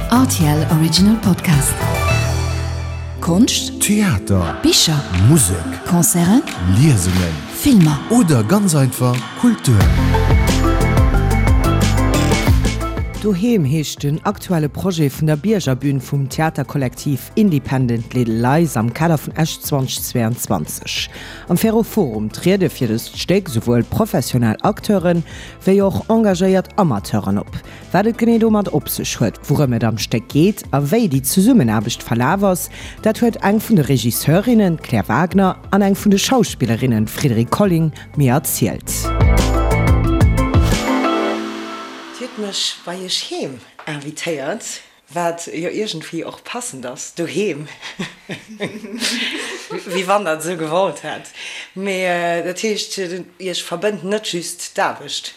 Rtl Original Podcast. Konscht, Theater, Bicher, Musek, Concerten, Liesungen Filmer. oder ganz einfach Kultur. Doheem heescht den aktuelle Projet vun der Biergerbün vum Theaterkollektiv Independent Little Lies am Kader vun Esch 2022. Am Ferroforum triede fir dëst Stéck souwuel professionell Acteuren, wéi och engagéiert Amateuren op. Wat et genee domat op sech huet, wourëm et am Stéck geet a wéi déi Zesummenaarbecht verlaf ass, dat huet eng vun de Regisseurinnen, d'Claire Wagner, an eng vun de Schauspillerinnen, d'Frédérique Colling, mir erzielt. Dir hutt mech bei iech heem invitéiert, wat jo iergendwéi och passend ass, doheem, wéi wann der et esou gewollt hätt. Mee dat heescht, iech verbënnt net just d'Aarbecht?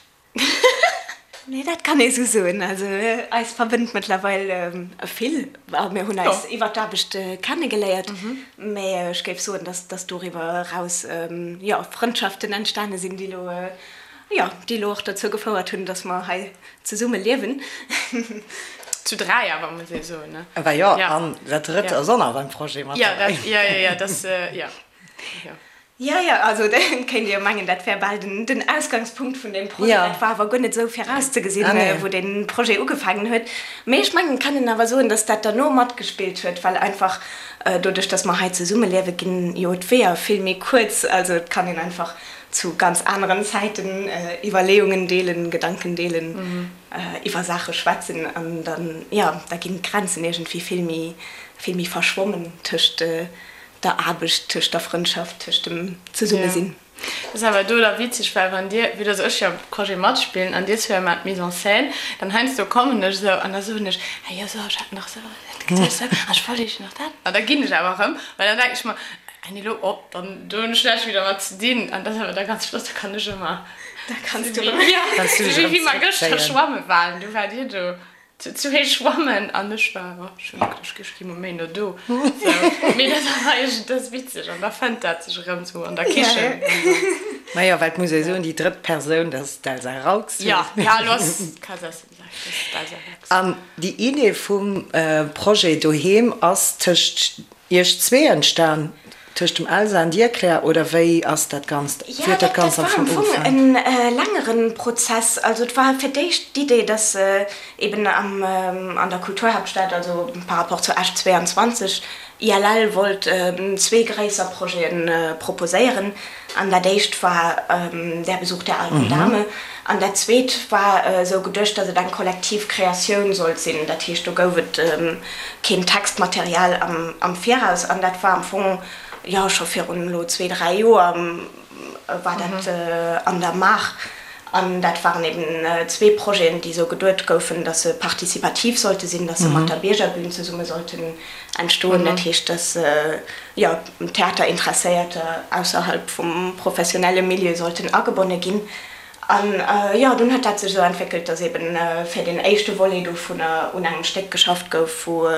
Nee, dat kann ee sou soen. Also eis verbënnt mëttlerweil vill. Mir hunn eis iwwer d'Aarbecht kennegeléiert, mä ech géif soen, dass dass doriwwer eraus, jo, Frëndschaften entstane sinn, déi elo, jo, déi elo och dozou gefouert hunn, dass mer hei zesumme liewen. Zu 3 awer, muss ee soen, ne? Bah jo, an dat Drëtt ass och nach beim Projet mat derbäi. Jo, dat, jo, jo, jo, dat, jo, jo. Jo, jo, also et kéint ee jo mengen, dat wär bal den Ausgangspunkt vun deem Projet. Dat war awer guer net esou virauszegesinn, wou dee Projet ugefaangen huet. Mee ech mengen, et kann een awer soen, datt dat derno matgespillt huet, well einfach doduerch, datt mer hei zesummeliewe ginn jo d'Weeër vill méi kuerz. Also et kann een einfach zu ganz aneren Zäiten Iwwerleeungen deelen, Gedanken deelen, iwwer Saache schwätzen an dann, jo, da ginn d'Grenzen iergendwéi vill méi, vill méi verschwommen tëscht der Aarbecht, tëscht der Frëndschaft, tëscht dem Zesummesinn. Dat ass awer do da witzeg, well wann dir, vue dass ech jo am Projet matspillen an dir zwee maacht d'Mise en scène, dann heiansdo kommen ech esou an da soen ech, ah jo, sou, ech hat nach esou dat geduecht, sou, an ech wollt iech nach dat. An da ginn ech awer erëm, well dann denken ech mer, ah nee, elo, oh, dann do hunn ech näischt méi dermat ze dinn. An dat ass awer da ganz flott, da kann ech ëmmer, Da kanns du erëm, jo, sou wéi mer gëschter schwamme waren, du waart dir do. Zu héich schwammen an ech war, oh, ech hunn geduecht, ech gi mol méi no do. Sou, mee dat ass eigentlech, dat ass witzeg an da fënnt dat sech erëm sou an der Kichen. Majo, well et muss ee soen, déi drëtt Persoun, dat ass d'Elsa Raux. Jo, ja, elo ass d'Elsa Raux. An déi Idee vum Projet Doheem ass tëscht Iech zwee entstan, tëscht dem Elsa an dir, Claire, oder wéi ass dat Ganzt, wéi Jo, huet dat dat Ganzt am war am Fong Fong ugefaangen? en längere Prozess. Also et war fir d'éischt d'Idee, dass eben am, an der Kulturhaaptstad, also par rapport zu Esch 22, ILL wollt zwee gréisser Projete proposéieren. An dat éischt war Der Besuch der alten Dame. An dat zweet war esou geduecht, datt et eng kollektiv Kreatioun sollt sinn. Dat heescht, do gouf et keen Textmaterial am Viraus. An dat war am Fong, jo, scho virun elo zwee, dräi Joer war dat an der Maach. An dat waren eben zwee Projeten, déi esou geduet goufen, datt se participativ sollte sinn, datt se mat der Biergerbün zesumme sollten entstoen. Dat heescht, datt, jo, Theaterinteresséierter ausserhalb vum professionelle Milieu sollten agebonne ginn. An, jo, dunn huet dat sech esou entwéckelt, datt eben fir deen éischte Volet dovunner un engem Stéck geschafft gouf, wou,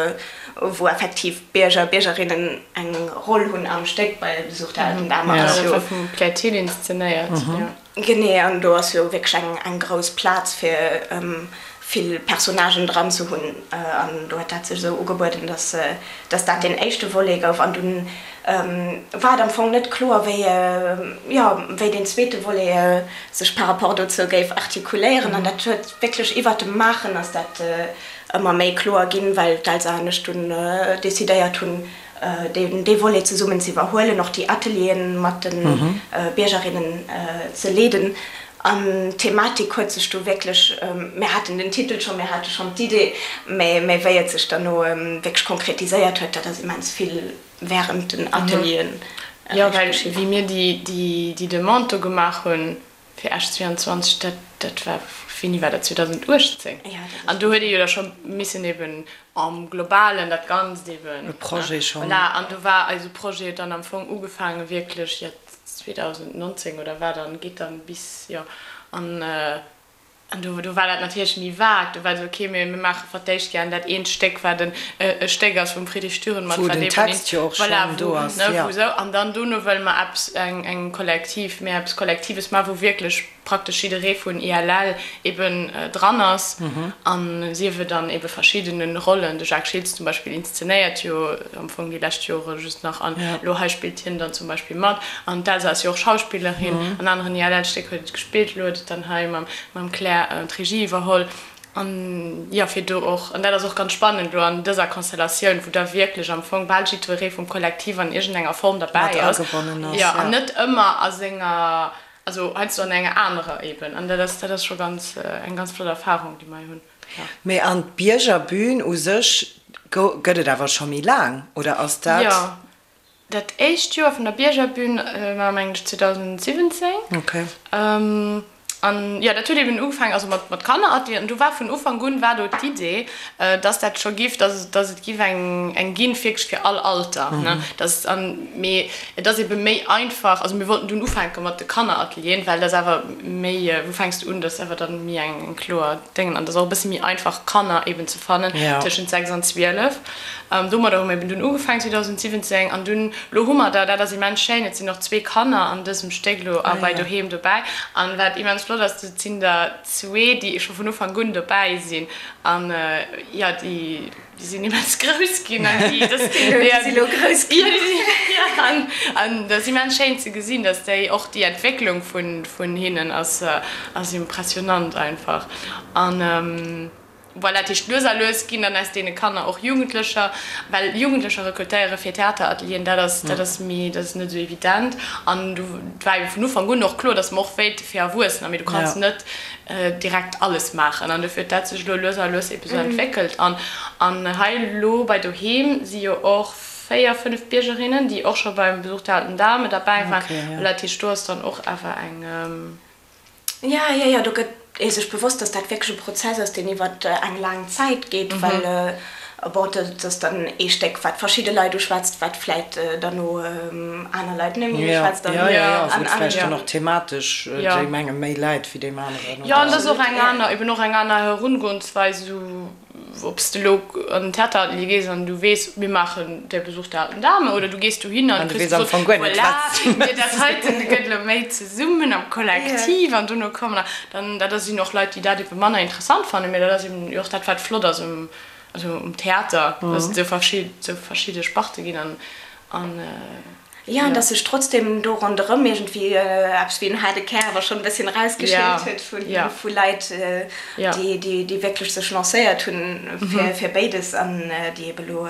wou effektiv Bierger, Biergerinnen eng Roll hunn am Stéck, bei Besuch der alten Dame ass jo. Dat war vum Claire Thill inszenéiert, jo. Genee, an do ass jo wierklech eng eng grouss Plaz fir vill Personnagen dran ze hunn. An do huet dat sech esou ugebueden, dass dass dat deen éischte Volet gouf. An dunn war et am Fong net kloer, wéi jo wéi deen zweete Volet sech par rapport dozou géif artikuléieren. An dat huet wierklech iwwert dem Maachen ass dat ëmmer méi kloer ginn, well d'Elsa an ech dunn decidéiert hunn, dee Volet zesummen ze iwwerhuelen, och déi Atelieren mat de Biergerinnen ze leeden. An d'Thematik huet sech do wierklech, mir haten den Titel schonn, mir hate schonn d'Idee, mä wéi et sech derno wierklech konkretiséiert huet, dat ass immens vill wärend den Atelieren Jo, well wéi mir déi Demande do gemaach hunn, Fir Esch 22, dat, dat war, wéini war dat, 2018? An do huet ee jo da scho missen eben am Globalen dat Ganzt eben. E Projet schonn. Voilà, an do war eise Projet dann am Fong ugefaange wierklech, jo, 2019 oder wat an geet dann bis, jo, an, An do, do war dat natierlech méi vague. Do war et esou, okay, mir, mir maache fir d'éischt gären dat eent Stéck, wat en, e Stéck ass vum Friedrich Dürrenmatt, Wou wat den eben Text jo och voilà, schonn do wou, ass, ne, jo. wou esou. An dann dono wëlle mer eppes, eng, eng kollektiv, méi eppes Kollektives maachen, wou wierklech. praktesch jidderee vun ILL eben dran ass an sief et an ebe verschiddene Rollen. De Jacques Schiltz zum Beispill inszenéiert jo am Fong déi lescht Jore just nach an elo hei spillt hien dann zum Beispill mat. An d'Elsa ass jo och Schauspillerin, an aneren ILL-Stéck huet et gespillt, elo huet et dann hei mam Claire d'Regie iwwerholl. An jo, fir do och, an dat ass och ganz spannend elo an dëser Konstellatioun, wou da wierklech am Fong bal jiddweree vum Kollektiv an iergendenger Form derbäi ass, jo, an net ëmmer a senger, also heiansdo an enger anerer eben. An dat ass, dat ass scho ganz, eng ganz flott Erfahrung, déi mer hei hunn, jo. Mee an d'Biergerbün u sech gëtt et awer scho méi laang, oder ass dat? Jo, Dat éischt Joer vun der Biergerbün war mengen ech 2017. Okay. An jo, dat huet eben ugefaangen, also mat mat Kanneratelieren. An do war vun Ufank un war do d'Idee, dass dat scho giff, dass dass et giff eng eng ginn wierklech fir all Alter, ne. Dass an, mee et ass ebe méi einfach, also mir wollten dunn ufänke mat de Kanneratelieren, well dat ass awer méi, wou fänks de un, dat ass awer dann méi eng eng kloer Déngen an dat ass och e bësse méi einfach Kanner eben ze fannen tëschent 6 an 12. Domadder hu mir eben dunn ugefaangen 2017 an dunn, elo hu mer der, dat ass immens schéin, et sinn och zwee Kanner an dësem Stéck elo a bei Doheem dobäi an wat immens flott ass, et sinn der zwee, déi scho vun Ufank un dobäi sinn an jo, déi sinn immens grouss ginn an déi, dat Déi si lo grouss ginn. Jo, an an dat ass immens schéin ze gesinn, dass déi och déi Entwécklung vun vun hinnen ass ass impressionant einfach an. Voilà, dat heescht, lues a lues ginn dann aus deene Kanner och Jugendlecher, well Jugendlecher rekrutéiere fir Theateratelieren, dat ass, dat ass méi, dat ass net esou evident. An du, et war ebe vun Ufank un och kloer, datt mer och wéilte fir Erwuessener, mee du kanns net direkt alles maachen. An dofir huet dat sech elo lues a lues ebe sou entwéckelt. An, an hei elo bei Doheem si jo och 4, 5 Biergerinnen, déi och scho beim Besuch der alten Dame derbäi waren. Voilà, dat heescht, do ass dann och awer eng. Ja, ja, ja, do gëtt ee sech bewosst, dass dat wierklech e Prozess ass, deen iwwer eng laang Zäit geet, well, bon, dat ass dann ee Stéck, wat verschidde Leit uschwätzt, wat vläit derno aner Leit net méi uschwätzt. Ja, ja, ja, wou et vläicht dann och thematesch deem enge méi läit wéi deem aneren. Jo, an dat ass och eng aner, eben och eng aner Herungoensweis, esou. Ob s de elo an den Theateratelier gees an du weess, mir maachen Der Besuch der alten Dame, oder du gees dohinner an du kriss gesot, voilà, mir dat heiten gëtt elo méi zesummen am Kollektiv an dono kommen der dann. Dat sinn och Leit, déi dat ebe manner interessant fannen, mä dat ass eben och dat, wat flott ass um, also um Theater, dass et esou verschidde Sparte ginn an. Jo, an dass sech trotzdem do ronderëm iergendwéi eppes wéi en haarde Kär awer schonn e bësschen erausgeschélt huet vu Leit, déi wierklech sech lancéiert hunn fir béides an déi ebe lo,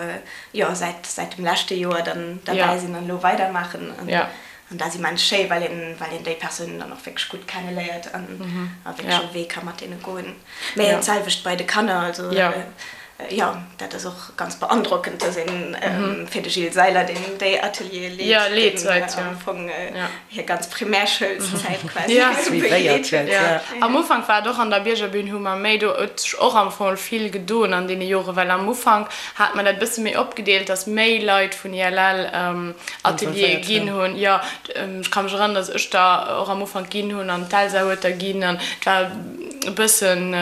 jo, säit säit dem leschte Joer dann derbäi sinn an elo weidermaachen. An dat ass immens schéi, well een, well een déi Persounen dann och wierklech gutt kenneléiert an a wierklech e Wee ka mat deene goen. Mä d'selwecht bei de Kanner, also jo, dat ass och ganz beandrockend, dass een fir de Gilles Seiler, deen déi Ateliere leet, deen am Fong hir ganz Primärschoulszäit quasi begleet huet. Am Ufank war et och an der Biergerbün, hu mer méi, do huet sech och am Fong vill gedoen an deene Jore, well am Ufank hat mer dat e bësse méi opgedeelt, dass méi Leit vun ILL Ateliere ginn hunn. Jo, ech ka mech erënneren, dass ech der och am Ufank ginn hunn an d'Elsa huet der ginn an et war e bëssen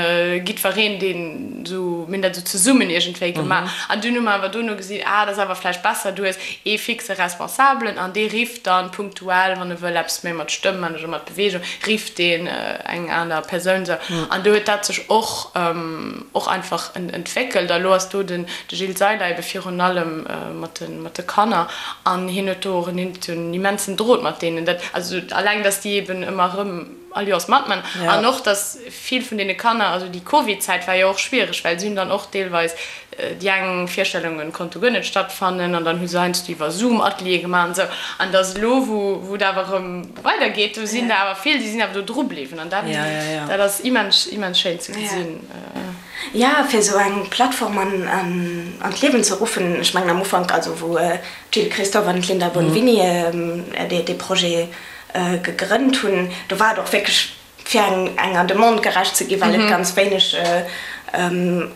jiddwereen, deen esou, mir hunn dat esou zesummen iergendwéi gemaach. An dunn hu mer awer dono gesinn, ah, dat ass awer vläicht besser, du hues ee fixe Responsabelen an dee rifft dann punktuell, wann e wëll eppes méi mat Stëmm man oder mat Beweegung, rifft deen eng aner Persoun esou. An do huet dat sech och och einfach entwéckelt. A lo ass do den Gilles Seiler ebe virun allem mat de mat de Kanner an hien huet do och en immensen Drot mat deenen. Dat, also alleng, datt déi eben ëmmer erëm all Joers matman an och, datt vill vun deene Kanner, also déi Covid-Zäit war jo och schwiereg, well si hunn dann och deelweis déi eng Virstellunge konnte guer net stattfannen an dann hu se heiansdo iwwer Zoom Ateliere gemaach an esou. An datt elo, wou wou et awer erëm weidergeet, do sinn der awer vill, déi sinn awer do dru bliwwen an dat dat ass immens immens schéin ze gesinn. Jo, fir esou eng Plattform an d'Liewen ze ruffen. Ech mengen am Ufank, also wou d'Jill Christophe an d'Linda Bonvini dee Projet gegrënnt hunn, do war et och wierklech fir enger Demande gerecht ze ginn, well et ganz wéineg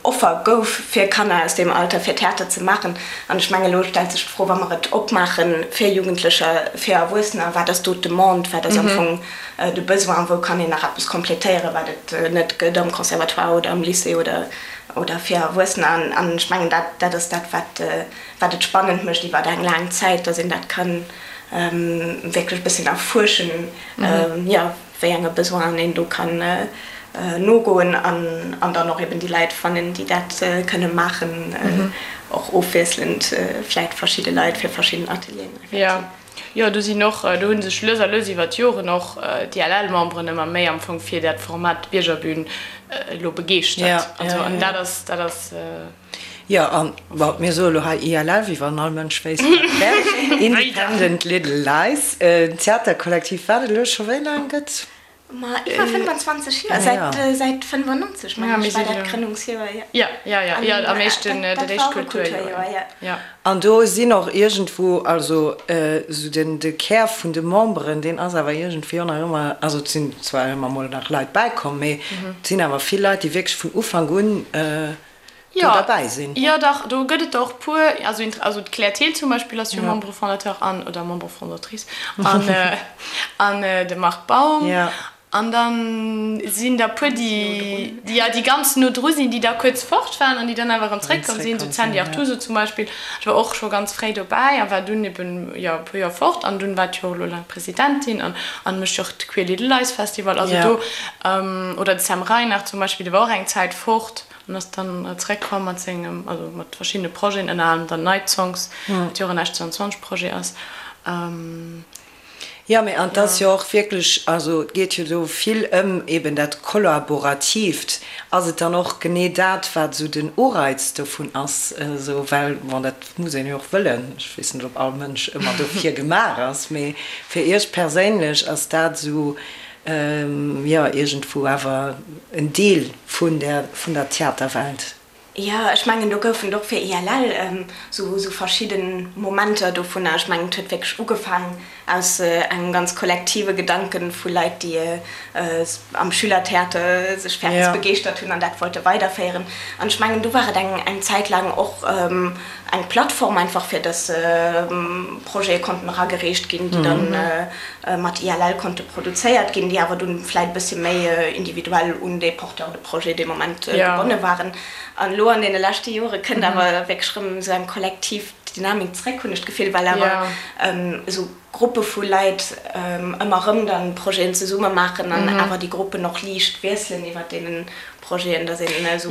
Offer gouf fir Kanner aus deem Alter fir Theater ze maachen. An ech mengen, elo stellt sech d'Fro, wa mer et opmaache fir Jugendlecher, fir Erwuessener, wat ass do d'Demande, wat ass am Fong de Besoin, wou kann een nach eppes complétéieren, wat et net gëtt am Conservatoire oder am Lycée oder oder fir Erwuessener. An ech mengen, dat dat ass dat, wat wat et spannend mécht iwwer eng laang Zäit, dass een dat ka wierklech e bësschen erfuerschen, jo. Wéi enge Besoinen een do kann nogoen an dann och eben déi Leit fannen, déi dat kënne maachen, och ofwiesselnd vläit verschidde Leit fir verschidden Atelieren effektiv. Jo, jo, do sinn och, do hu sech lues a lues iwwer d'Joren och d'ILL-Memberen ëmmer méi am Fong fir dat Format Biergerbün elo begeeschtert. Also an dat ass, dat ass. Jo, an, bon, mir soe lo hei ILL, wéi wann all Mënsch wéisst, wat et wär. Independent Little Lies, en Theaterkollektiv, wat et elo scho wéi laang gëtt? Ma iwwer 25 Joer, säit, säit 95, mengen ech, war dat d'Grënnungsjoer, jo. Jo, jo, jo, jo, am éischten, dat éischt Kulturjoer, jo. An do sinn och iergendwou, also esou den, de Kär vun de Memberen, deen ass awer iergendwéi och nach ëmmer, also et sinn zwar ëmmer mol nach Leit bäikomm, mee et sinn awer vill Leit, déi wierklech vun Ufank un, do derbäi sinn. Jo, dach, do gëtt et der och puer. Also, also d'Claire Thill zum Beispill ass jo Membre fondateur an, oder Membre fondatrice, an, an de Marc Baum. An da sinn der puer, déi, déi, jo, déi ganz no dru sinn, déi da kuerz fort waren an déi dann awer erëm zréckkomm sinn, sou d'Sandy Artuso zum Beispill, déi war och scho ganz fréi dobäi a war dunn eben, jo, e puer Joer fort an dunn war d'jo och elo laang Presidentin an, an mécht jo och de Queer Little Lies Festival. Also do, oder de Sam Reinard zum Beispill, dee war och eng Zäit fort. An ass dann zeréckkomm mat sengem, also mat verschiddene Projeten, ënner anerem dann Night Songs, wat jo och en Esch 22 Projet ass. Jo, mee an 't ass jo och wierklech, also et geet jo do vill ëm eben dat Kollaboratiivt. Ass et dann och genee dat, wat esou den Ureiz dovun ass, esou, well, bon, dat muss een jo och wëllen, ech weess net, ob all Mënsch ëmmer dofir gemaach ass, mee fir Iech perséinlech ass dat esou Jo, iergendwou awer en Deel vun der, vun der Theaterwelt. Jo, ech mengen, do goufen et och fir ILL esou verschidde Momenter dovunner. Ech mengen, et huet wierklech ugefaangen aus engem ganz kollektive Gedanken vu Leit, déi am Schülertheater sech fir eppes begeeschtert hunn an dat wollte weiderféieren. An ech mengen, do war et eng Zäit laang och eng Plattform einfach, fir dass Projete konnten eragereecht ginn, déi dann mat ILL konnte produzéiert ginn, déi awer dunn vläit e bëssi méi individuell un dee Porteur de projet dee Moment gebonne waren. An elo an deene leschte Jore kënnt awer wierklech erëm esou eng kollektiv Dynamik zréck, hunn ech d'Gefill, well awer esou Gruppe vu Leit ëmmer erëm dann Projeten zesumme maachen an awer déi Gruppen och liicht wiesselen iwwer deenen Projeten, dass een esou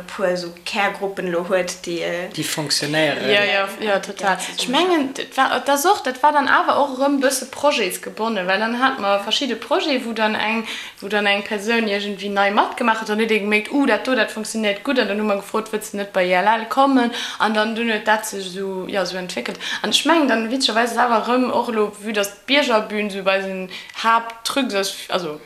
puer esou Kärgruppen elo huet, déi. Déi fonctionnéieren. Jo, jo, jo, total. Ech mengen, et war, et ass och, dat war dann awer och erëm e bësse projetsgebonnen, well dann hate mer verschidde Projete, wou dann eng, wou dann eng Persoun iergendwéi nei matgemaach huet. Dann huet ee gemierkt, Uh, dat do, dat fonctionnéiert gutt. An dann hu mer gefrot, Wëlls de net bei ILL kommen? An dann, dunn huet dat sech esou, jo, esou entwéckelt. An ech mengen dann, witzegerweis ass awer erëm och elo, vue dass d'Biergerbün esou eisen Haapttruc ass, also,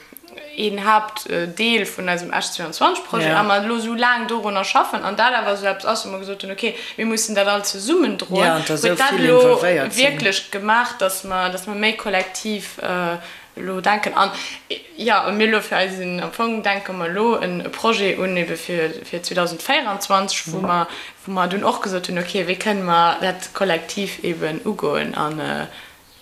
een Haaptdeel vun eisem Esch 22 Projet a mer elo esou laang dorunner schaffen an dat awer esou eppes ass, wou mer gesot hunn, okay, mir mussen dat all zesummen droen, huet dat elo wierklech gemaach, datt mer, datt mer méi kollektiv elo denken. An jo, a mir elo fir eisen, am Fong denke mer elo en Projet un ebe fir, fir 2024, wou mer, wou mer dunn och gesot hunn, okay, wéi kënne mer dat kollektiv eben ugoen an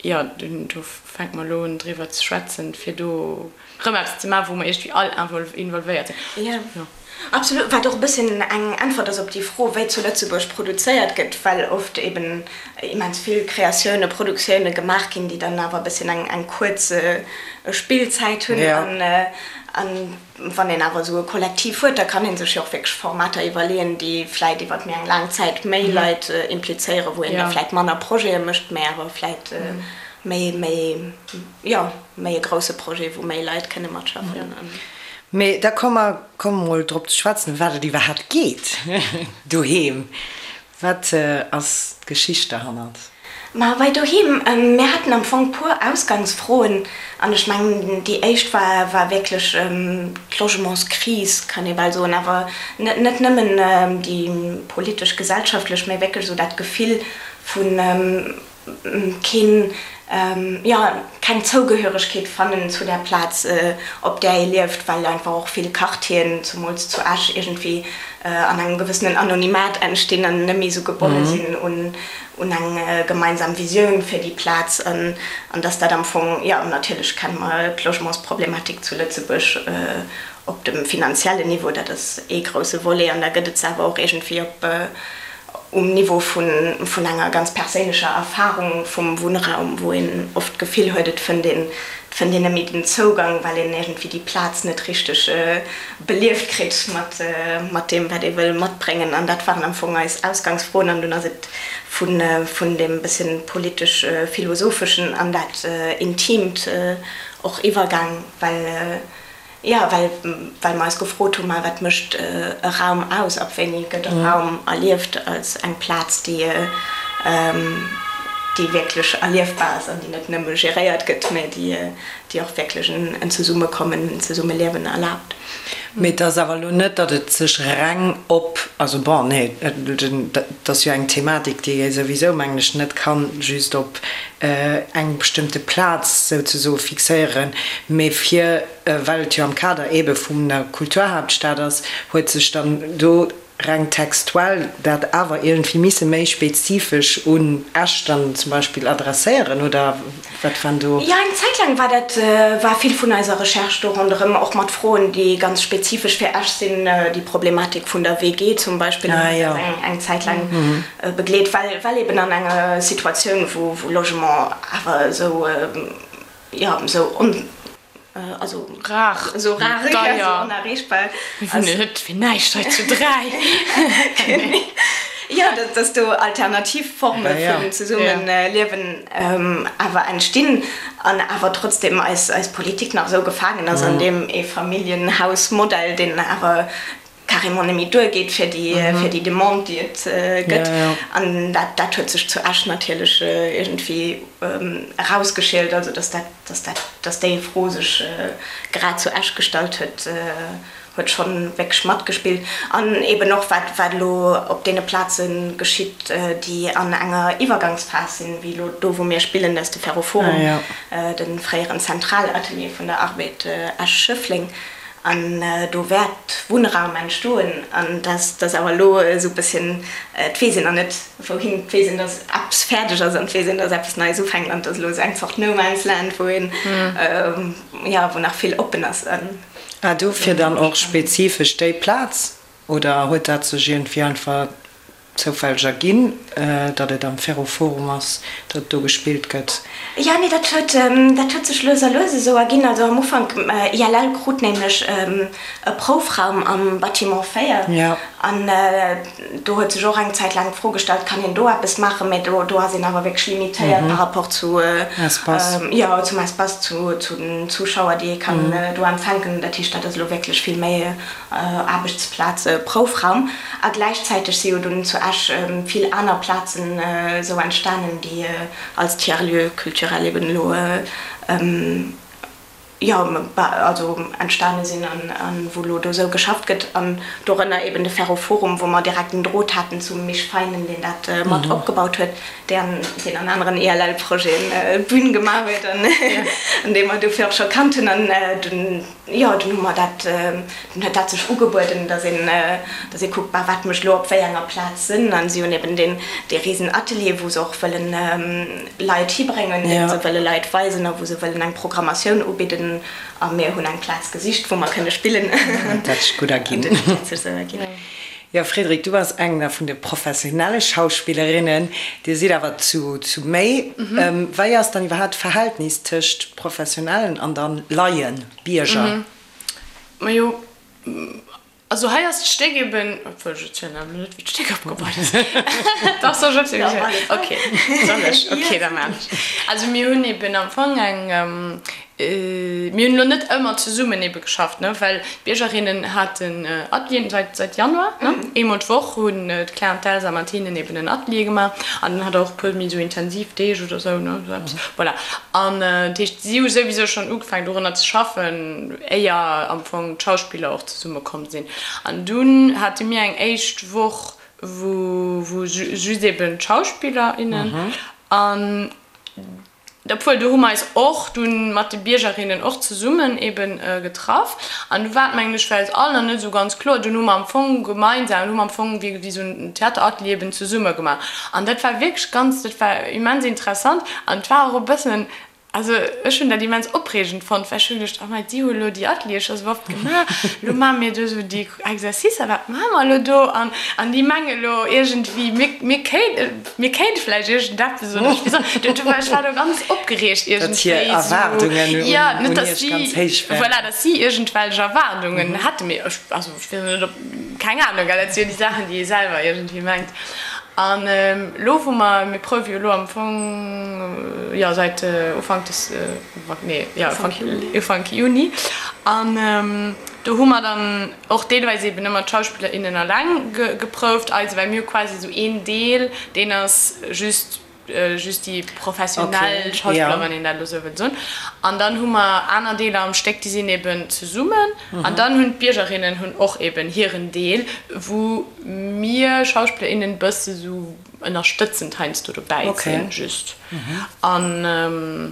Jo, do fänke mer elo un driwwer ze schwätzen, fir do erëm eppes ze maachen, wou mer iergendwéi all involvéiert sinn. Jo, absolut. Wat och e bësschen eng Äntwert ass op déi Fro, wéi zu Lëtzebuerg produzéiert gëtt, well oft eben immens vill Kreatioune, Produktioune gemaach ginn, déi dann awer e bësschen eng kuerz Spillzäit hunn. An Wann een awer esou e Kollektiv huet, da kann ee sech jo och wierklech Formater iwwerleeën, déi vläit iwwer méi eng laang Zäit méi Leit implizéieren, wou een da vläit manner Projete mécht, mä awer vläit méi, méi, jo, méi e grousse Projet, wou méi Leit kënne matschaffen. Mee da komme mer, komme mol drop ze schwätzen, ëm wat et iwwerhaapt geet doheem. Wat ass d'Geschicht derhannert? Ma bei Doheem, mir haten am Fong puer Ausgangsfroen an ech mengen déi éischt war war wierklech d'Logementskris, kann ee bal soen, awer net net nëmmen déi politesch, gesellschaftlech, mä wierklech esou dat Gefill vu keen, jo, keng Zougehöregkeet fannen zu där Plaz, op där ee lieft, well einfach och vill Quartieren, zumools zu Esch, iergendwéi an engem gewëssenen Anonymat entstinn an net méi esou gebonne sinn un un eng gemeinsam Visioun fir déi Plaz an dass dat am Fong, jo, natierlech kenne mer d'Logementsproblematik zu Lëtzebuerg op dem finanziellen Niveau, dat ass ee grousse Volet an da gëtt et se awer och iergendwéi op. um Niveau vun enger ganz perséinlecher Erfarung vum Wunnraum, wou een oft d'Gefill huet, et fënnt een, et fënnt een net méi den Zougang, well een iergendwéi déi Plaz net richteg belieft kritt mat, mat deem, wat ee wëll matbréngen. An dat waren am Fong eis Ausgangsfroen. An dunn ass et vun, vun deem bësschen politesch-philosopheschen an dat Intiimt och iwwergaang, well, Jo, well well mer eis gefrot hunn, ma wat mécht e Raum aus? Ab wéini gëtt e Raum erlieft als eng Plaz, déi déi wierklech erliefbar ass an déi net nëmme geréiert gëtt, mä déi déi och wierklech en Zesummekommen, en Zesummeliewen erlaabt. Mee et ass awer elo net, datt et sech reng op, also bon, nee, et ass jo eng Thematik, déi ee souwisou, mengen ech, net kann just op eng bestëmmte Plaz souzesoe fixéieren, mee fir, well et jo am Kader eebe vun der Kulturhaaptstad ass, huet sech dann do reng textuell dat awer iergendwéi misse méi spezifesch un Esch dann zum Beispill adresséieren, oder wat waren do? Jo, eng Zäit laang war dat, war vill vun eiser Recherche do ronderëm, och mat Froen, déi ganz spezifesch fir Esch sinn, déi Problematik vun der WG zum Beispill huet eis eng Zäit laang begleet, well, well eben an enger Situatioun, wou, wou Logement awer esou, jo, esou on, also rar, esou rar, jo, esou onerreechbar Mir wunnen net fir näischt hei zu 3. Jo, dass, dass do alternativ Forme vun Zesummeliewen awer entstinn an awer trotzdem eis, eis Politik nach esou gefaangen ass an deem Eefamilljenhausmodell, deen awer carrément net méi duergeet fir déi, fir déi Demande, déi et gëtt. An dat, dat huet sech zu Esch natierlech iergendwéi erausgeschielt, also dass dat, dass dat, dass déi Fro sech grad zu Esch gestallt huet, huet schonn wierklech matgespillt. An eeben och wat, wat elo op deene Plaze geschitt, déi an enger Iwwergangsphas sinn, wéi elo do, wou mir spillen, dat ass de Ferroforum, de fréieren Zentralatelier vun der Arbed Esch-Schëffleng. An do wäert Wunnraum entstoen. An dass dass awer elo esou e bësschen, et weess een nach net wouhin, et weess een, dass eppes fäerdeg ass an et weess een, dass eppes Neies ufänkt an et ass elo esou eng Zort No Man's Land, wou een, jo, wou nach vill oppen ass. Ah, dofir dann och spezifesch déi Plaz? Oder huet dat sech iergendwéi einfach zoufälleg erginn, datt et am Ferroforum ass, datt do gespillt gëtt? Jo, nee, dat huet, dat huet sech lues a lues esou erginn. Also am Ufank, ILL krut nämlech e Proufraum am Bâtiment 4 an do huet sech och eng Zäit laang d'Fro gestallt, kann een do eppes maachen? Mä do, do ass een awer wierklech limitéiert par rapport zu, jo, zum Espace, zu, zu den Zuschauer, déi ee kann do empfänken. Dat heescht, dat ass elo wierklech vill méi Aarbechtsplaze, Proufraum a gläichzäiteg si jo dunn zu Esch vill aner Plazen esou entstanen, déi als Tiers-lieu culturel eben elo jo also entstane sinn an wou elo do esou geschafft gëtt an dorënner eben de Ferroforum, wou mer direkt en Drot haten zum Misch Feinen, deen dat mat opgebaut huet, deen deen an aneren ELL-Projeten d'Bün gemaach huet an dee mer dofir och scho kannt hunn an dunn Jo, dunn hu mer dat, dunn huet dat sech ugebueden, dass een, dass ee kuckt, bah, wat mécht elo op wéi enger Plaz Sënn. An si hunn eben deen, dee risen Atelier, wou se och wëllen Leit hibréngen, deen se wëlle Leit weisen a wou se wëllen eng Programmatioun ubidden. A mir hunn eng Plaz gesicht, wou mer kënne spillen. An dat huet sech gutt erginn. An dat huet sech esou erginn. Jo, Frédérique, du bass eng vun de professionelle Schauspillerinnen. Dir sidd awer zu, zu méi. Wei ass dann iwwerhaapt d'Verhältnis tëscht Professionellen an dann Laien, Bierger? Majo, also hei ass d'Stéck eben, obwuel ech erzielen awer net, wéi d'Stéck opgebaut ass. Dach, soll ech erzielen? Ok, soll ech? Ok, da maan ech. Also mir hunn eben am Fong eng, Mir hunn elo net ëmmer zesummen ebe geschafft, ne, well d'Biergerinnen haten Atelieren seit, seit Januar, ne. Eemol d'Woch hunn d'Claire an d'Elsa mat hinnen eben en Atelier gemaach an dann hat der och e puer méi esou intensiv Deeg oder esou, ne, esou eppes. Voilà. An dat heescht, si hu souwisou schonn ugefaangen dorunner ze schaffen, éier am Fong d'Schauspiller och zesumme komm sinn. An dunn hate mir eng éischt Woch, wou, wou just eben d'Schauspiller, innen an Obwuel, do hu mer eis och dunn mat de Biergerinnen och zesummen eben getraff. An du war et, mengen ech, fir eis all nach net esou ganz kloer. Dunn hu mer am Fong gemeinsam, hu mer am Fong wéi esou en Theateratelier eben zesumme gemaach. An dat war wierklech ganz, dat war immens interessant an et war och e bëssen. Also ech hunn dat immens opreegend fonnt, well ech hu geduecht, oh mei, déi hu elo déi Ateliere scho sou oft gemaach, elo maache mir do esou déi Exercicer, wat maache mer elo do? An, an déi menge elo iergendwéi, mir, mir kéint, mir kéinte vläicht iergendeppes oder ech weess och, du, du, ech war do ganz opgereegt Datt hir iergendwéi esou, Erwaardungen un, jo, net un datt iech si, ganz héich waren. voilà, datt si iergendwelch Erwaardungen hätten, mee ech, also ech weess net, ob, keng Ahnung, gell, dat si jo déi Saachen, déi ee selwer iergendwéi mengt. An elo wou mer, mir prouwe jo elo am Fong, jo säit Ufank des, nee, jo Ufank Juni, Ufank Juni, an do hu mer dann och deelweis eben ëmmer d'Schauspiller, innen alleng geprouft, eise, well mir hu quasi esou een Deel, deen ass just just déi professionell Schauspiller, wann een dat elo esou wëllt soen. An dann hu mer aner Deeler am Stéck, déi sinn eben zesummen. An dann hunn d'Biergerinnen hunn och eben hiren Deel, wou mir Schauspiller, innen e bësse sou ënnerstëtzend heiansdo dobäi sinn, just. An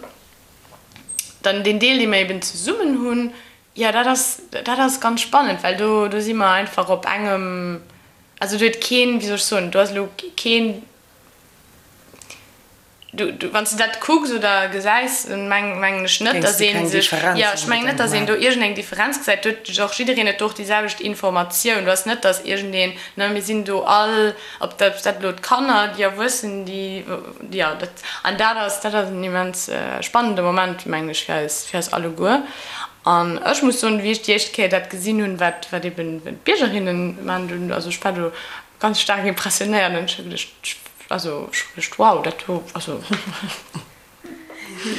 dann deen Deel, dee mer eben zesummen hunn, jo, dat ass, dat ass ganz spannend, well do, do si mer einfach op engem, also do huet keen, wéi soll ech soen, do ass elo keen, Du, du, wann s de dat kucks oder gesäis, dann meng, mengen ech net, Géings dass de ee keng sech, Differenz jo, ech mengen net, unbedéngt dass een do maachen. iergendeng Differenz gesäit. Do huet och jiddereen huet do och déi selwecht Informatioun. Do ass net, dass iergendeen, ne, mir sinn do all, ob dat, dat elo d'Kanner, déi Erwuessen, déi, jo, dat, an dat ass, dat ass en immens spannende Moment, mengen ech, fir eis, fir eis alleguer. An ech muss soen, wéi ech déi éischt Kéier dat gesinn hunn, wat, wat eben d'Biergerinnen maachen, do, also ech war do ganz staark impressionéiert an ech hu geduecht, also ech hu geduecht, wow, dat do, also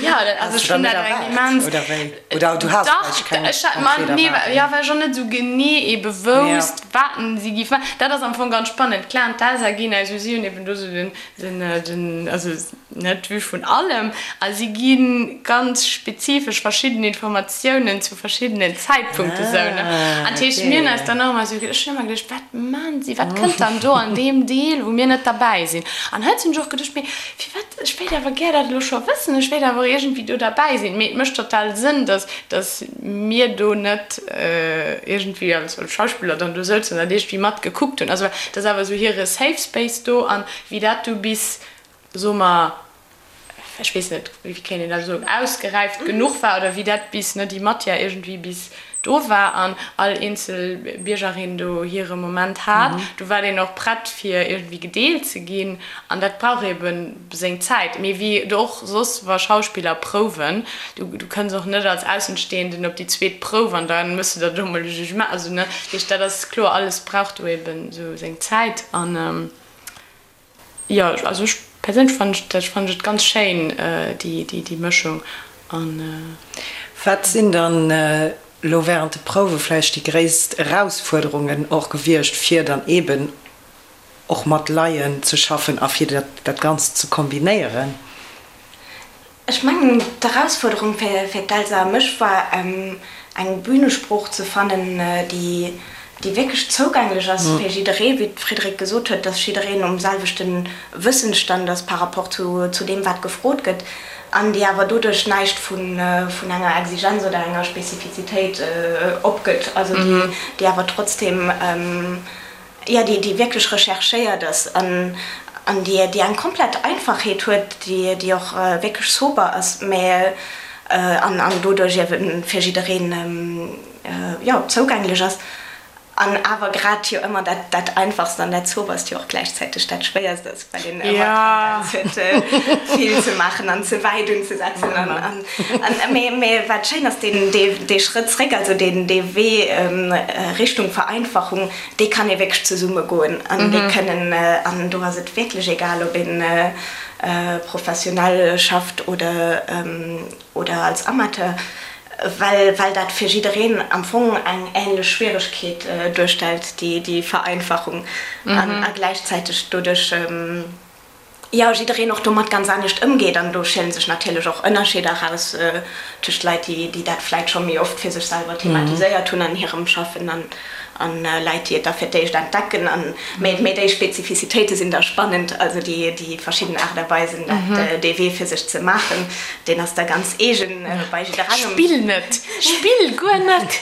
jo, dat, also ech hunn dat eng immens, Oder wéi? Oder du has dach, vläicht keng ech hat, ma konkret nee, Erwaardung? jo, well ech och net esou genee ebe wousst, wat si géif maachen. Dat ass am Fong ganz spannend. D'Claire an d'Elsa ginn eis, si hunn eben do esou den, den, den, also net d'Vue vun allem a si gi ganz spezifesch verschidden Informatiounen zu verschiddenen Zäitpunkte sou, ne? Ah, An dat heescht, mir hunn eis okay. dann och ëmmer esou, ech hunn ëmmer geduecht, wat maachen si, wat kënnt dann do an deem Deel, wou mir net derbäi sinn? An hei hunn ech och geduecht, mee firwat, ech wéilt awer gär dat elo scho wëssen, ech wéilt awer och iergendwéi do derbäi sinn. Mee et mécht total Sënn, dass, dass mir do net iergendwéi als Schauspiller dann do souzen an dat iergendwéi matgekuckt hunn. Also dat ass awer esou hire Safe Space do an wéi dat du bis, soe mer, ech weess net, wéi kéint een dat soen, ausgeräift genuch war oder wéi dat bis, ne, déi Matière iergendwéi bis do war an all eenzel Biergerin do hire Moment hat, do war deen och prett fir iergendwéi gedeelt ze ginn an dat brauch ebe seng Zäit. Mee wéi et och soss wa Schauspiller prouwen, du, du kënns och net als Aussenstehenden op déi zweet Prouf an da méchs de der do emol e Jugement, also ne, dat heescht dat ass kloer, alles brauch do eben esou seng Zäit an. Jo, also ech perséinlech fannen ech dat, fannen ech et ganz schéin déi déi Mëschung an. Wat sinn dann elo während de Prouwe vläicht déi gréisst Erausfuerderungen och gewiescht, fir dann eeben och mat Laien ze schaffen a fir dat Ganzt ze kombinéieren? Ech mengen, d'Erausfuerderung fir d'Elsa a mech war, eng Bünesprooch ze fannen, déi wierklech zougänglech ass fir jidderee, wéi d'Frédérique gesot huet, dass jiddereen um selwechte Wëssensstand ass par rapport zu deem, wat gefrot gëtt, an déi awer doduerch näischt vun enger Exigenz oder enger Spezifizitéit opgëtt, also déi awer trotzdeem jo, déi, déi wierklech recherchéiert ass an, an déi, déi eng komplett Einfachheet huet, déi, déi och wierklech sober ass, mä an, an doduerch iewe fir jiddereen, jo, zougänglech ass. An awer grad jo ëmmer dat, dat Einfachst an dat Soberst jo och gläichzäiteg dat Schwéierst ass, well een ëmmer d'Tendenz huet, vill ze maachen an ze wäit unzesetzen. An, an, an, mä, mä wat schéin ass, deen, dee, dee Schrëtt zréck, also deen, dee Wee Richtung Vereinfachung, déi kann ee wierklech zesumme goen an déi kënnen, an do ass et wierklech egal, ob een professionell schafft oder oder als Amateur, well well dat fir jiddereen am Fong eng änlech Schwieregkeet duerstellt, déi déi Vereinfachung, an a gläichzäiteg doduerch. jo, jiddereen och domat ganz anescht ëmgeet an do schielen sech natierlech och Ënnerscheeder eraus tëscht Leit, déi, déi dat vläit scho méi oft fir sech selwer thematiséiert hunn an hirem Schaffen an, an Leit, déi et da fir d'éischt entdecken. An, mä, mä déi Spezifizitéite sinn da spannend, also déi, déi verschidden Aart a Weisen, dat, dee Wee fir sech ze maachen, deen ass da ganz eegen bei jidderengem. Spill net! Spill guer net!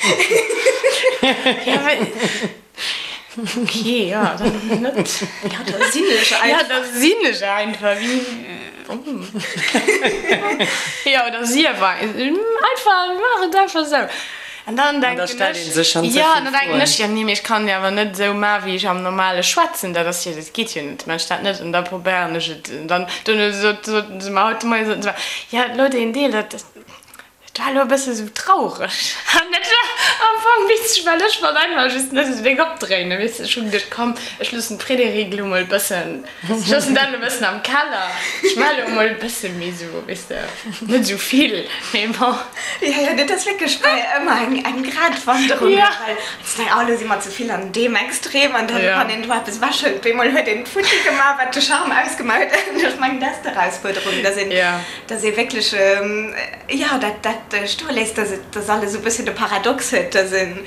Jo, mä. Ok, jo, dann net. Jo, da sinn ech einfach. Jo, da sinn ech einfach. Wéi, jo, oder sief einfach, maach et einfach esou. An dann denken ech, jo, an dann denken ech, jo, nee, mee ech kann jo awer net esou maachen, wéi ech am normale schwätzen, dat ass jo, dat geet jo net, maachen ech dat net. An da probéieren ech et. An dann, duerno sot, soten se mer haut de Moien, soten se mer, jo, elo deen Deel, dat, Et war elo e bësse sou traureg an dat war am Fong witzeg, well ech wollt einfach just net esou déck opdréinen, weess de. Ech hu geduecht, komm, ech loossen d'Frédérique elo mol e bëssen, ech loossen dat elo e bëssen am Keller, ech maache elo mol e bësse méi sou, weess de, net esou vill, mee bon. Jo, jo, dat ass wierklech bei ëmmer eng, eng Gratwanderung, Ja. well s de, oh, elo si mer ze vill an deem Extrem an dann, wann een do eppes ewechhëlt, op eemol huet een d'Futti gemaach, wat de Charme ausgemaach huet. Ech mengen, dat ass d'Erausfuerderung, dass een, dass ee wierklech, jo, dat, dat stoe léisst, dass et, dass alles esou e bësschen de Paradox huet, dass een,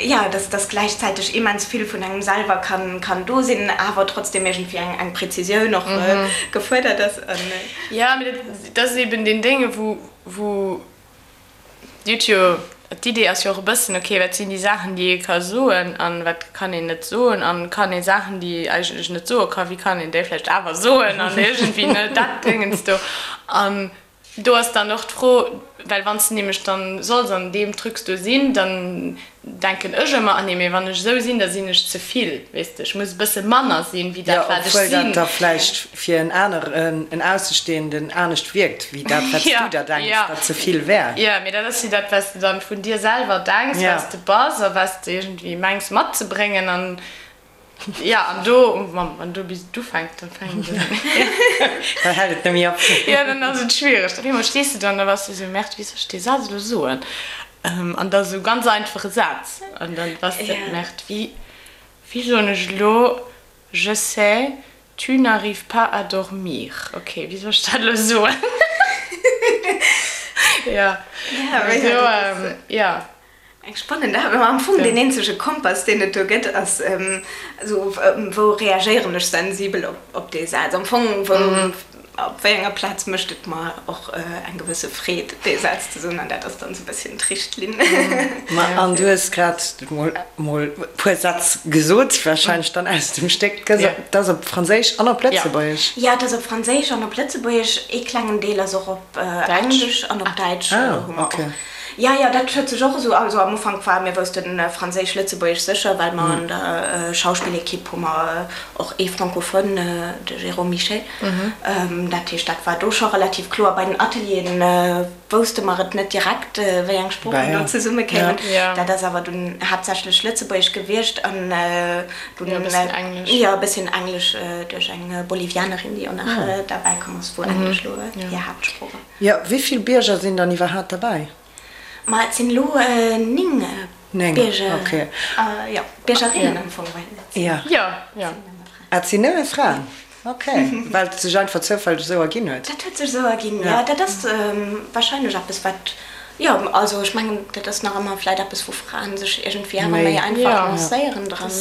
jo, dass, dass gläichzäiteg immens vill vun engem selwer kann, kann do sinn, awer trotzdem iergendwéi eng, eng Präzisioun och gefuerdert ass. An. Jo, mee dat, dat ass eben deen Dénge wou, wou Dir hutt jo, d'Idee ass jo och e bëssen, okay, wat sinn déi Saachen, déi ee ka soen an wat kann een net soen an kann ee Saachen, déi ee eigentlech net soe ka, wéi kann een déi vläicht awer soen an iergendwéi, ne, dat Déngens do. An do ass dann och d'Fro, well wann s de nämlech dann solls an deem Trucs do sinn, dann Denken ech ëmmer, ah nee, mee wann ech esou sinn, da sinn ech ze vill, weess de, ech muss e bësse manner sinn, wéi dat, wat ech Jo, obwuel sinn. dat da vläicht fir en aneren, en Aussestehenden anescht wierkt, wéi dat, wat s du der denks, wat ze vill wär. Jo, mee dat ass jo dat, wat s de dann vun dir selwer denks, wat s de bass a wat s de iergendwéi mengs matzebréngen. An Jo, an do, wann do bis et ufänkt, dann fänkt et un. Dann hält et net méi op. Jo, dann ass et schwiereg. Op eemol stees de do an da bass de esou, Merde, wéi soll ech dee Saz elo soen? An da esou ganz einfache Saz. An dann bass de, Merde, wéi, wéi soen ech elo, je sais, tu n'arrives pas à dormir. Ok, wéi soll ech dat elo soen? Jo, do, jo. Eng spannend Aarbecht. Am Fong deen eenzege Kompass, deen et do gëtt, ass esou, wou reagéieren ech sensibel op dee Saz? Am Fong, wou, op wéi enger Plaz mécht et mer och eng gewësse Freed, dee Saz ze soen? An dat ass dann esou e bësschen d'Richtlinn. Ma an du hues grad mol mol e puer Sätz gesot, warscheinlech dann aus dem Stéck. Dat ass op Franséisch an op Lëtzebuergesch? Jo, et ass op Franséisch an op Lëtzebuergesch. Ee klengen Deel ass och op Englesch an op Däitsch hu mer och. Jo, jo, dat huet sech och esou, also am Ufank war, mir woussten Franséisch-Lëtzebuergesch sécher, well mer an der Schauspillequipe hu mer och ee Francophone, de Jérôme Michet. Dat heescht, dat war do scho relativ kloer. Bei den Atelieren wousste mer et net direkt, wéi eng Sproochen do zesumme kéimen. Dat ass awer dunn haaptsächlech Lëtzebuergesch gewiescht an dunn e bësschen Englesch, jo, e bësschen Englesch duerch eng Bolivianerin, déi och nach derbäi komm ass, wou Englesch elo hir Haaptsprooch ass. Jo, wéi vill Bierger sinn dann iwwerhaapt derbäi? Ma et sinn elo 9 Bierger, jo, Biergerinnen am Fong, well et sinn nëmme Fraen. Ah, et sinn nëmme Fraen? Ok, well et sech einfach zoufälleg esou erginn huet? Dat huet sech esou erginn, jo. Dat ass warscheinlech eppes, wat, jo, also ech mengen, dat ass nach ëmmer vläit eppes, wou Fraen sech iergendwéi awer méi einfach lancéieren dran,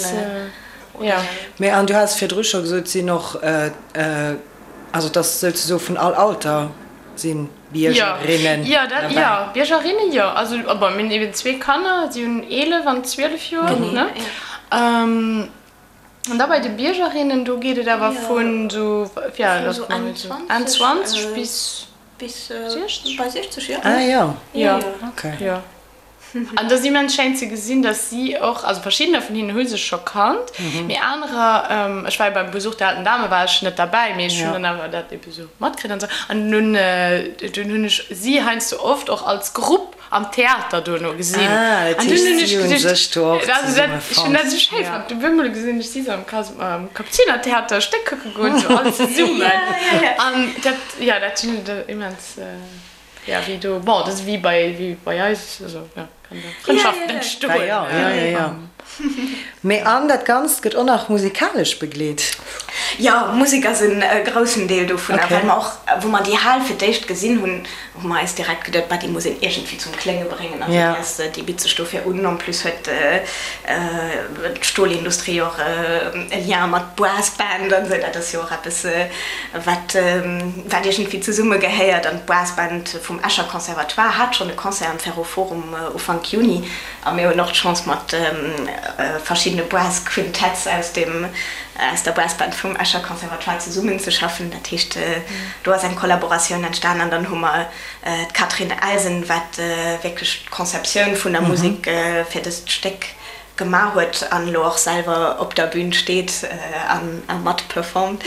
oder? Mee, an du has virdru scho gesot, et sinn och Also et ass souzesoe vun all Alter si Biergerinnen Jo, dat, jo, Biergerinnen, jo. Also bon, mir hunn eben zwee Kanner, si hunn 11 an 12 Joer, ne? An da bei de Biergerinnen, do geet et awer vun esou, ja, Vun esou Enn 20. Enn 20 bis. Bis 60. Bei 60, jo. Ah jo, Jo, okay. jo. An et ass immens schéin ze gesinn, dass si och, also verschiddener vun hinnen hu sech scho kannt, mee anerer, ech war jo beim Besuch der alten Dame war ech net derbäi, mee ech hunn dann awer dat ebe sou matkritt an sou. An dunn, dunn hunn ech si heiansdo oft och als Grupp am Theater dono gesinn. Ah, dat An dunn heescht, hunn ech si hunn geduecht, sech do och also dat, zesumme ech hunn dat fonnt. esou schéi fonnt. Op eemol gesinn ech si sou am Kas, am Kapuzinertheater e Stéck kucke goen, sou all zesummen. An dat, jo, dat hunn ech immens. Ja, wéi do, bon, dat ass wéi bei, wéi bei eis, also jo, kann do Frëndschaften entstoen. Ja, ja, ja, ja. Mee an dat Ganzt gëtt och nach musikalesch begleet. Jo, Musek ass e groussen Deel dovunner, well mer och, wou mer déi Hal fir d'éischt gesinn hunn, hu mer eis direkt geduet, bah, déi muss een iergendwéi zum Klénge bréngen. Also déi ass, déi bitt sech dofir un. En plus huet d'Stolindustrie och e Lien mat Brassband an esou, dat ass jo och eppes, wat, wat iergendwéi zesumme gehéiert. An d'Brassband vum Escher Conservatoire hat schonn e Concert am Ferroforum Ufank Juni. A mir hunn och d'Chance mat verschiddene Brass Quintets aus dem aus der Brassband vum Escher Conservatoire zesummen ze schaffen. Dat heescht do ass eng Kollaboratioun entstan an dann hu mer d'Catherine Elsen, wat wierklech d'Conceptioun vun der Musek fir dëst Stéck gemaach huet an elo och selwer op der Bün steet a mat performt.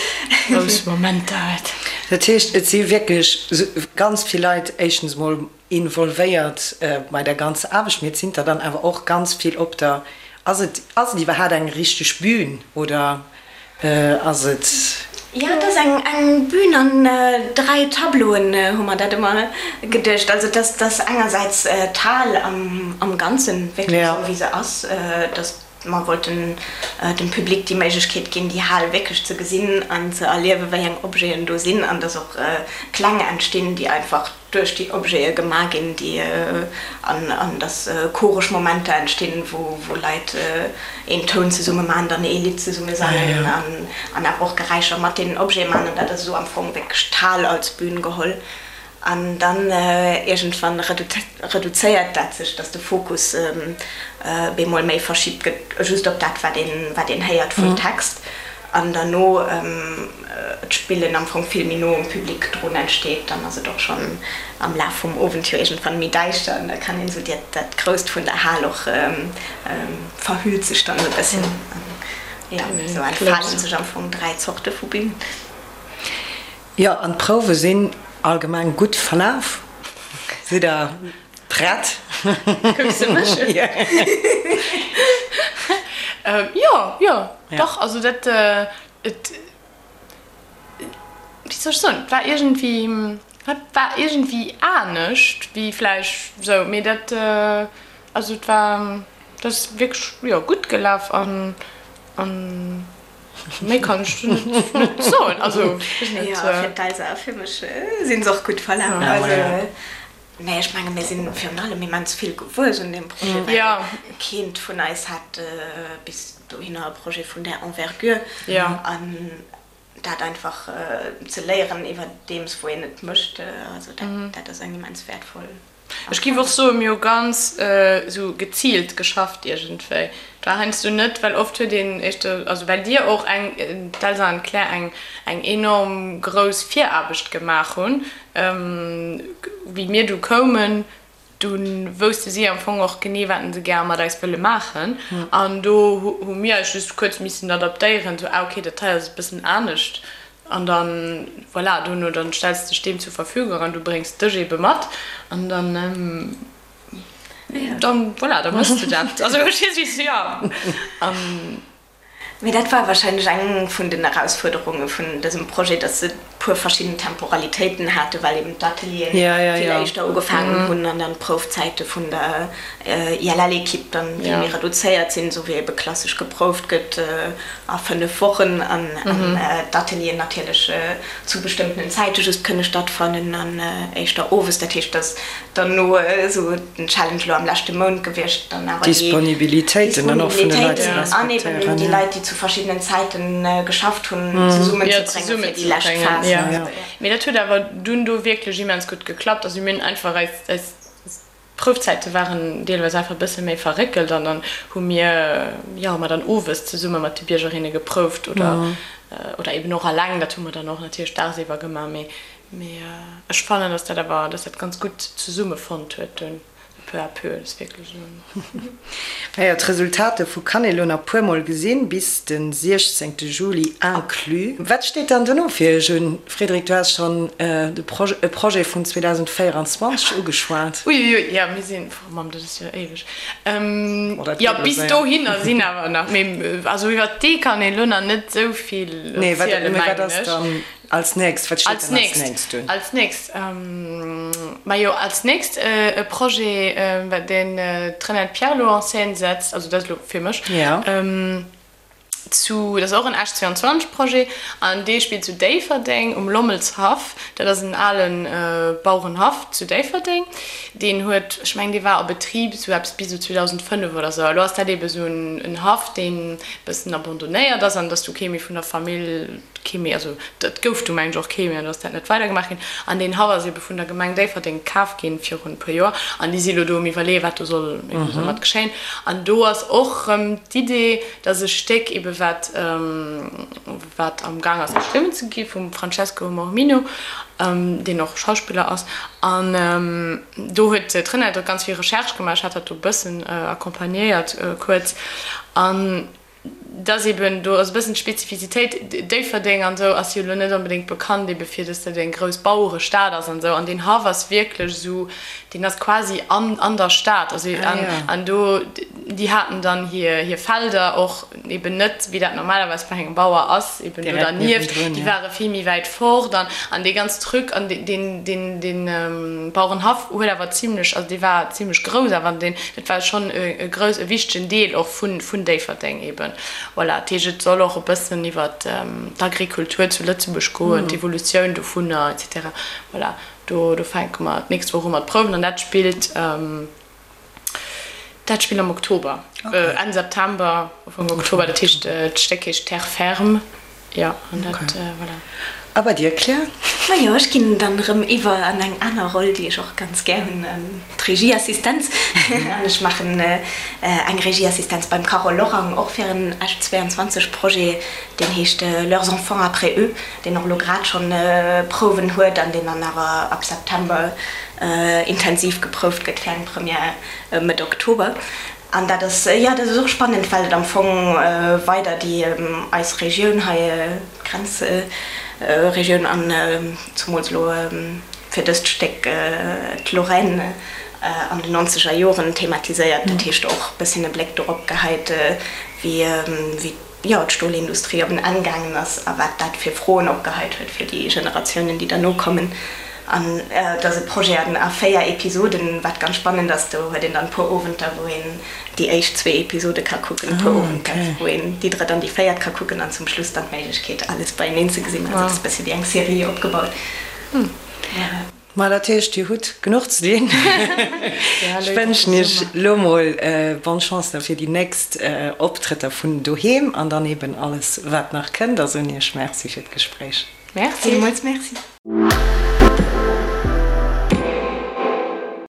Grouss Momenter huet. Dat heescht et si wierklech ganz vill Leit éischtens mol involvéiert bei der ganzer Aarbecht, mee et sinn der dann awer och ganz vill op der, ass et, ass et iwwerhaat eng richteg Bühn oder ass et? Jo, et ass eng eng Bühn an 3 Tableauen, hu mer dat ëmmer geduecht. Also et ass, et ass engersäits d'Hal am am Ganzen, wierklech esou wéi se ass, dass mer wollten dem Public déi Méiglechkeet ginn, déi Hal wierklech ze gesinn an ze erliewen, wéi eng Objeten do sinn an dass och Kläng entstinn, déi einfach duerch déi Objete gemaach ginn, déi an an dass choresch Momenter entstinn, wou wou Leit een Toun zesumme maachen, dann ee Lidd zesumme sangen an an awer och Geräischer mat deenen Objete maachen. An dat ass esou am Fong wierklech d'Hal als Bün geholl. An dann iergendwann reduzéiert dat sech, dass de Fokus bemol méi verschibt gëtt, just op dat wat een wat een héiert vum Text. An derno d'Spillen am Fong vill méi no um Public drun entsteet, dann ass et och schonn am Laf vum Owend jo iergendwann méi däischter an da kann een esou dat Grousst vun der Hal och verhüllt sech dann e bësschen. Jo, esou entfalen sech am Fong 3 Zorte vu Bühn. Jo, an d'Prouwe sinn allgemeng gutt verlaf. Sidd der prett? Kucks de mech un? Jo, jo, dach. Also dat, et, wéi soll ech soen, et war iergendwéi, et war iergendwéi anescht wéi vläicht esou, mee dat, also et war, dat ass wierklech, jo, gutt gelaf an, an. Méi kann ech net net soen. Also ech net. Jo, fir d'Elsa a fir mech sinn se och gutt verlaf. Also nee, ech menge mir sinn virun allem immens vill gewuess un deem Projet, well keent vun eis hat bis dohinner e Projet vun där Envergure. An dat einfach ze léieren iwwerdeems wou een et mécht, also dat dat ass eng immens wäertvoll. Ech giff och soen, mir hu ganz esou geziilt geschafft iergendwéi. Et war heiansdo net, well oft huet een éischter, also well dir och eng, d'Elsa an d'Claire, eng eng enorm grouss Viraarbecht gemaach hunn. Wéi mir du koumen, du wousste si am Fong och genee, wat se gär mat eis wëlle maachen. An do hu mir eis just kuerz missen adaptéieren, esou, ah okay, dat hei ass e bëssen anescht. An dann, voilà, dono, dann stells de dech deem zur Verfügung an du bréngs dech eebe mat an dann, dann, voilà, da méchs de dat. Also, verstees du, wéi ech, jo. An. Mee dat war wahrscheinlech eng vun den Erausfuerderunge vun dësem Projet, dass se puer verschidden Temporalitéiten haten, well eben d'Atelieren vill éischter ugefaangen hunn an dann d'Proufzäite vun der ILL-Ekipp dann vill méi reduzéiert sinn, esou wéi ebe klassesch geprouft gëtt a 5 Wochen an d'Atelieren natierlech zu bestëmmtenen Zäite just kënne stattfannen an éischter owes. Dat heescht, dass dann no esou den Challenge elo am leschte Mount gewiescht, dann awer déi Disponibilitéiten dann och vun de Leit ze an eben déi Leit, déi zu verschiddenen Zäiten geschafft hunn, zesummenzebréngen fir déi lescht Phas. Mee dat huet awer dunn do wierklech immens gutt geklappt. Also mir hunn einfach eis D'Proufzäite waren deelweis einfach e bësse méi verréckelt an dann hu mir, jo, hu mer dann owes zesumme mat de Biergerinne geprouft oder, oder eben och alleng. Dat hu mer dann och natierlech dagsiwwer gemaach, mee, mee ech fannen, dass dat awer, dass dat ganz gutt zesummefonnt huet dunn, peu à peu. Dat ass wierklech esou. Naja, d'Resultat dovu kann ee lo nach puer mol gesinn, bis de 16 Juli inclus. Wat steet dann dono fir iech un? Frédéric, du has schonn de e Projet vun 2024 ugeschwat. Uiuiui, jo, mir sinn, oh Mamm, dat ass jo éiweg. Jo, bis dohinner sinn awer nach, mee also iwwer dee kann een elo nach net esou vill erzielen, mengen ech. Als nächst, wat steet dann als nächst un? Als nächst, majo, als nächst e Projet, deen d'Renate Pierlot en scène setzt, also dat ass elo fir mech. Zu, dat ass och en Esch 22 Projet an dee spillt zu Déifferdeng um Lommelshaff. Dat ass en ale Bauerenhaff zu Déifferdeng. Deen huet, ech mengen dee war a Betrib esou eppes bis esou 2005 oder esou. A lo ass dat eebe esou en Haff, deen e bëssen abandonnéiert ass an et ass du kee méi vun der Famill, kee méi, also et gouf du mengen ech och kee méi an do ass dat net weidergemaach ginn. An deen Haff ass eebe vun der Gemeng Déifferdeng kaf ginn virun e puer Joer an déi si lo do um Iwwerleeën, wat do soll eebe domat geschéien. An do ass och erëm d'Idee, Dat ass e Stéck ebe wat wat am Gaang ass geschriwwen ze gi vum Francesco Mormino, deen och Schauspiller ass. An do huet d'Renate och ganz vill Recherche gemaach. Ech hat dat do e bëssen accompagnéiert kuerz. An dat ass eben, do ass e bëssen d'Spezifizitéit, Déifferdeng an esou ass jo elo net onbedéngt bekannt ebe fir, datt dat eng grouss Bauerestad ass an esou. An deen Haff ass wierklech esou, deen ass quasi an an der Stad. Also an an do. Déi haten dann hir hir Felder och eben net, wéi dat normalerweis bei engem Bauer ass, eben do dernieft. Déi ware vill méi wäit fort an an dee ganz Truc an deen deen deen Bauerenhaff huet awer zimlech, also dee war zimlech grouss awer an deen, dat war schonn e grouss, e wichtegen Deel och vun vun Déifferdeng eben. Voilà, dat heescht et soll och e bëssen iwwer d'Agrikultur zu Lëtzebuerg goen, d'Evolutioun dovunner et cetera. Voilà, do do fänke mer d'nächst Woch u mat prouwen an dat spillt. Dat spillt am Oktober, Enn September, Ufank Oktober. Dat heescht, d'Stéck heescht Terre ferme. Jo, an dat, voilà. A bei dir, Claire? Majo, ech ginn dann erëm iwwer an eng aner Roll, déi ech och ganz gär hunn, d'Regieassistenz. An ech maachen eng Regieassistenz beim Carole Lorang, och fir en Esch 22 Projet, deen heescht Leurs enfants après eux, deen och elo grad schonn Prouwen huet an deen dann awer ab September intensiv geprouft gëtt fir eng Première Mëtt Oktober. An dat ass, jo, dat ass och spannend, well et am Fong weider déi eis Regioun hei, d'Grenzregioun an zumools elo fir dëst Stéck d'Lorraine an den nonzeger Joren thematiséiert. Dat heescht och e bësschen e Bléck dorop geheit, wéi wéi jo, d'Stolindustrie op en Enn gaangen ass a wat dat fir Froen opgeheit huet fir déi Generatiounen, déi derno kommen. An et ass e Projet an a 4 Episoden, wat ganz spannend ass. Do huet een dann e puer Owenter, wou een déi éischt zwee Episode ka kucken, e puer Owenter, wou een déi drëtt an déi véiert ka kucken an zum Schluss dann d'Méiglechkeet, alles beieneen ze gesinn. Also et ass e bësse wéi eng Serie opgebaut. Ma dat heescht, Dir hutt genuch ze dinn. Ech wënschen Iech elo mol bonne Chance da fir déi nächst Optrëtter vun doheem an dann eben alles, wat nach kënnt. A soen Iech Merci fir d'Gespréich. Merci. Villmools Merci.